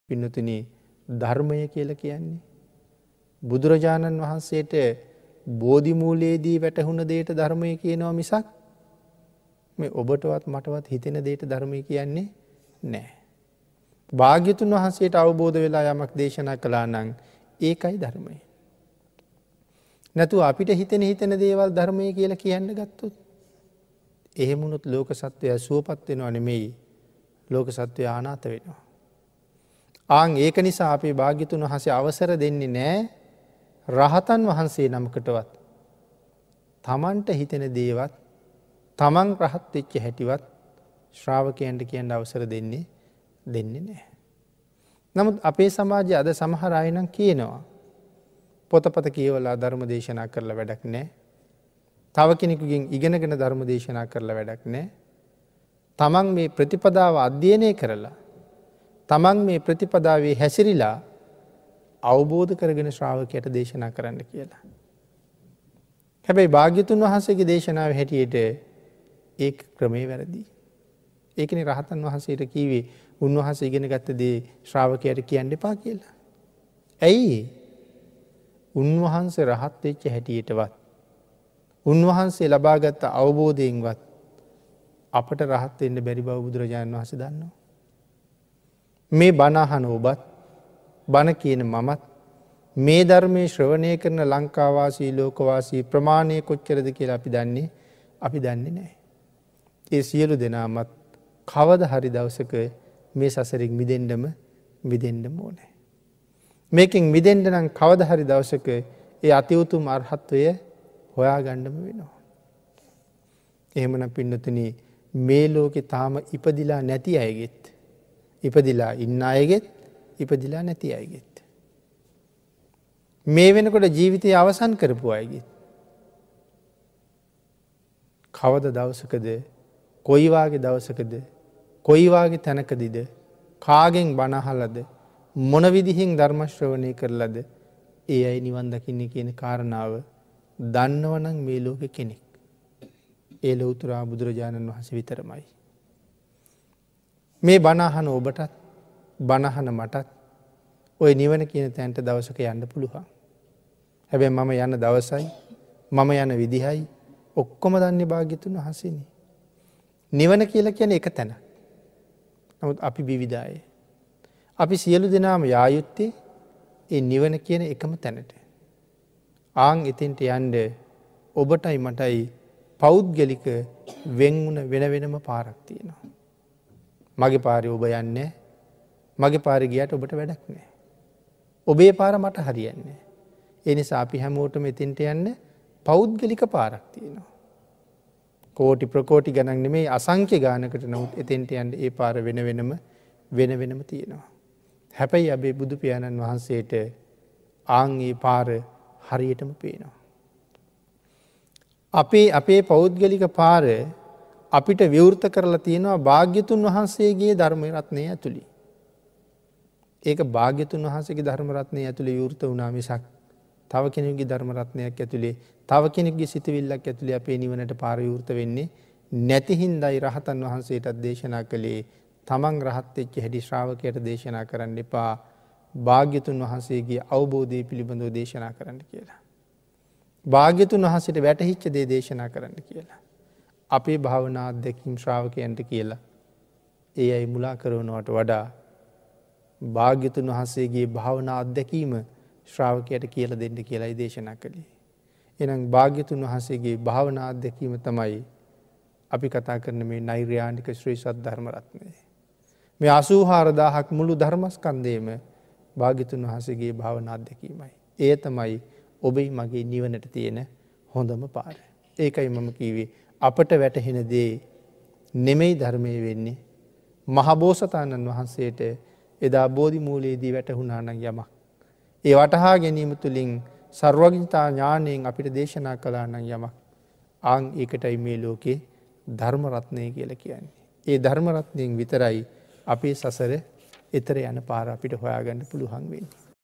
පින්නතුනි, ධර්මය කියලා කියන්නේ බුදුරජාණන් වහන්සේට බෝධි මූලයේදී වැටහුණ දෙයට ධර්මය කියනවා මිසක් මේ ඔබටවත් මටවත් හිතෙන දෙයට ධර්මය කියන්නේ නෑ. භාග්‍යතුන් වහන්සේට අවබෝධ වෙලා යමක් දේශනා කළා නම් ඒකයි ධර්මය. නැතුව අපිට හිතෙන හිතෙන දේවල් ධර්මය කියලා කියන්න ගත්තොත් එහෙම වුණොත් ලෝක සත්වයා සුවපත් වෙනව නෙමෙයි, ලෝක සත්වයා අනාථ වෙනවා. ආන් ඒක නිසා අපේ භාග්‍යතුන් වහන්සේ අවසර දෙන්නේ නෑ රහතන් වහන්සේ නමකටවත් තමන්ට හිතෙන දේවත් තමන් රහත් වෙච්ච හැටිවත් ශ්‍රාවකයන්ට කියන්න අවසර දෙන්නේ නෑ. නමුත් අපේ සමාජයේ අද සමහර අය නම් කියනවා පොතපත කියවලා ධර්ම දේශනා කරලා වැඩක් නෑ. තව කෙනෙකුගෙන් ඉගෙනගෙන ධර්ම දේශනා කරලා වැඩක් නෑ. තමන් මේ ප්‍රතිපදාව අධ්‍යයනය කරලා තමන් මේ ප්‍රතිපදාවේ හැසිරිලා අවබෝධ කරගෙන ශ්‍රාවකයට දේශනා කරන්න කියලා. හැබැයි භාග්‍යතුන් වහන්සේගේ දේශනාව හැටියට ඒ ක්‍රමේ වැරදි. ඒකනේ රහතන් වහන්සේට කිව්වේ උන්වහන්සේ ඉගෙන ගත්ත දේ ශ්‍රාවකයට කියන්න එපා කියලා. ඇයි? උන්වහන්සේ රහත් වෙච්ච හැටියටවත් උන්වහන්සේ ලබාගත් අවබෝධයෙන්වත් අපට රහත් වෙන්න බැරි බව බුදුරජාණන් වහන්සේ දන්නවා. මේ බණ අහන ඔබත් බණ කියන මමත් මේ ධර්මයේ ශ්‍රවණය කරන ලංකාවාසී ලෝකවාසී ප්‍රමාණය කොච්චරද කියලා අපි දන්නේ නැහැ. ඒ සියලු දෙනාමත් කවද හරි දවසක මේ සසරින් මිදෙන්නම ඕනේ. මේකෙන් මිදෙන්න නම් කවද හරි දවසක ඒ අති උතුම් අරහත්වය හොයාගන්නම වෙනවා. එහෙමනම් පින්නතුනි, මේ ලෝකේ තාම ඉපදිලා නැති අයගෙත්, ඉපදිලා ඉන්න අයගෙත්, ඉපදිලා නැති අයගෙත්, මේ වෙනකොට ජීවිතය අවසන් කරපු අයගෙත් කවද දවසකද, කොයි වාගේ දවසකද, කොයි වාගේ තැනකදීද, කාගෙන් බණ අහලාද, මොන විදිහෙන් ධර්ම ශ්‍රවණය කරලාද ඒ අය නිවන් දකින්නේ කියන කාරණාව දන්නවනම් මේ ලෝකෙ කෙනෙක් ඒ ලෞතර බුදුරජාණන් වහන්සේ විතරමයි. මේ බණ අහන ඔබටත් බණ අහන මටත් ඔය නිවන කියන තැනට දවසක යන්න පුළුවන්. හැබැයි මම යන දවසයි මම යන විදිහයි ඔක්කොම දන්නේ භාග්‍යතුන් වහන්සේනේ. නිවන කියලා කියන්නේ එක තැනක්. නමුත් අපි විවිධයි. අපි සියලු දෙනාම යා යුත්තේ ඒ නිවන කියන එකම තැනට. ආන් එතෙන්ට යන්න ඔබටයි මටයි පෞද්ගලික වෙන් වුණ වෙන වෙනම පාරක් තියෙනවා. මගේ පාරේ ඔබ යන්නේ, මගේ පාරේ ගියාට ඔබට වැඩක් නෑ. ඔබේ පාර මට හරියන්නේ නෑ. ඒ නිසා අපි හැමෝටම එතෙන්ට යන්න පෞද්ගලික පාරක් තියෙනවා. කෝටි ප්‍රකෝටි ගණන් නෙමෙයි, අසංඛ්‍ය ගානකට. නමුත් එතෙන්ට යන්න ඒ පාර වෙන වෙනම තියෙනවා. හැබැයි අපේ බුදු පියාණන් වහන්සේට ආන් ඒ පාර හරියටම පේනවා. අපේ පෞද්ගලික පාර අපිට විවෘත කරලා තියෙනවා භාග්‍යතුන් වහන්සේගේ ධර්ම රත්නය ඇතුළේ. ඒක භාග්‍යතුන් වහන්සේගේ ධර්ම රත්නය ඇතුළේ විවෘත වුණා මිසක් තව කෙනෙකුගේ ධර්ම රත්නයක් ඇතුළේ, තව කෙනෙකුගේ සිතවිල්ලක් ඇතුළේ අපේ නිවනට පාර විවෘත වෙන්නේ නැති හින්දායි රහතන් වහන්සේටත් දේශනා කළේ තමන් රහත් වෙච්ච හැටි ශ්‍රාවකයට දේශනා කරන්න එපා, භාග්‍යතුන් වහන්සේගේ අවබෝධය පිළිබඳව දේශනා කරන්න කියලා. භාග්‍යතුන් වහන්සේට වැටහිච්ච දේ දේශනා කරන්න කියලා. අපේ භාවනා අත්දැකීම් ශ්‍රාවකයන්ට කියලා ඒ අය මුලා කරනවට වඩා භාග්‍යතුන් වහන්සේගේ භාවනා අත්දැකීම ශ්‍රාවකයට කියලා දෙන්න කියලායි දේශනා කළේ. එහෙනම් භාග්‍යතුන් වහන්සේගේ භාවනා අත්දැකීම තමයි අපි කතා කරන මේ නෛර්යානික ශ්‍රී සද්ධර්ම රත්නය. මේ 84,000ක් මුළු ධර්මස්කන්ධයම භාග්‍යතුන් වහන්සේගේ භාවනා අත්දැකීමයි. ඒ තමයි ඔබයි මගේ නිවනට තියෙන හොඳම පාර. ඒකයි මම කිව්වේ අපට වැටහෙන දේ නෙමෙයි ධර්මයේ වෙන්නේ. මහබෝසතාණන් වහන්සේට එදා බෝධි මූලයේදී වැටහුණා නම් යමක්, ඒ වටහා ගැනීම තුළින් සර්වඥතා ඥාණයෙන් අපිට දේශනා කළා නම් යමක්, ආන් ඒකටයි මේ ලෝකේ ධර්ම රත්නය කියලා කියන්නේ. ඒ ධර්ම රත්නයෙන් විතරයි අපේ සසර එතර යන පාර අපිට හොයාගන්න පුළුවන් වෙන්නේ.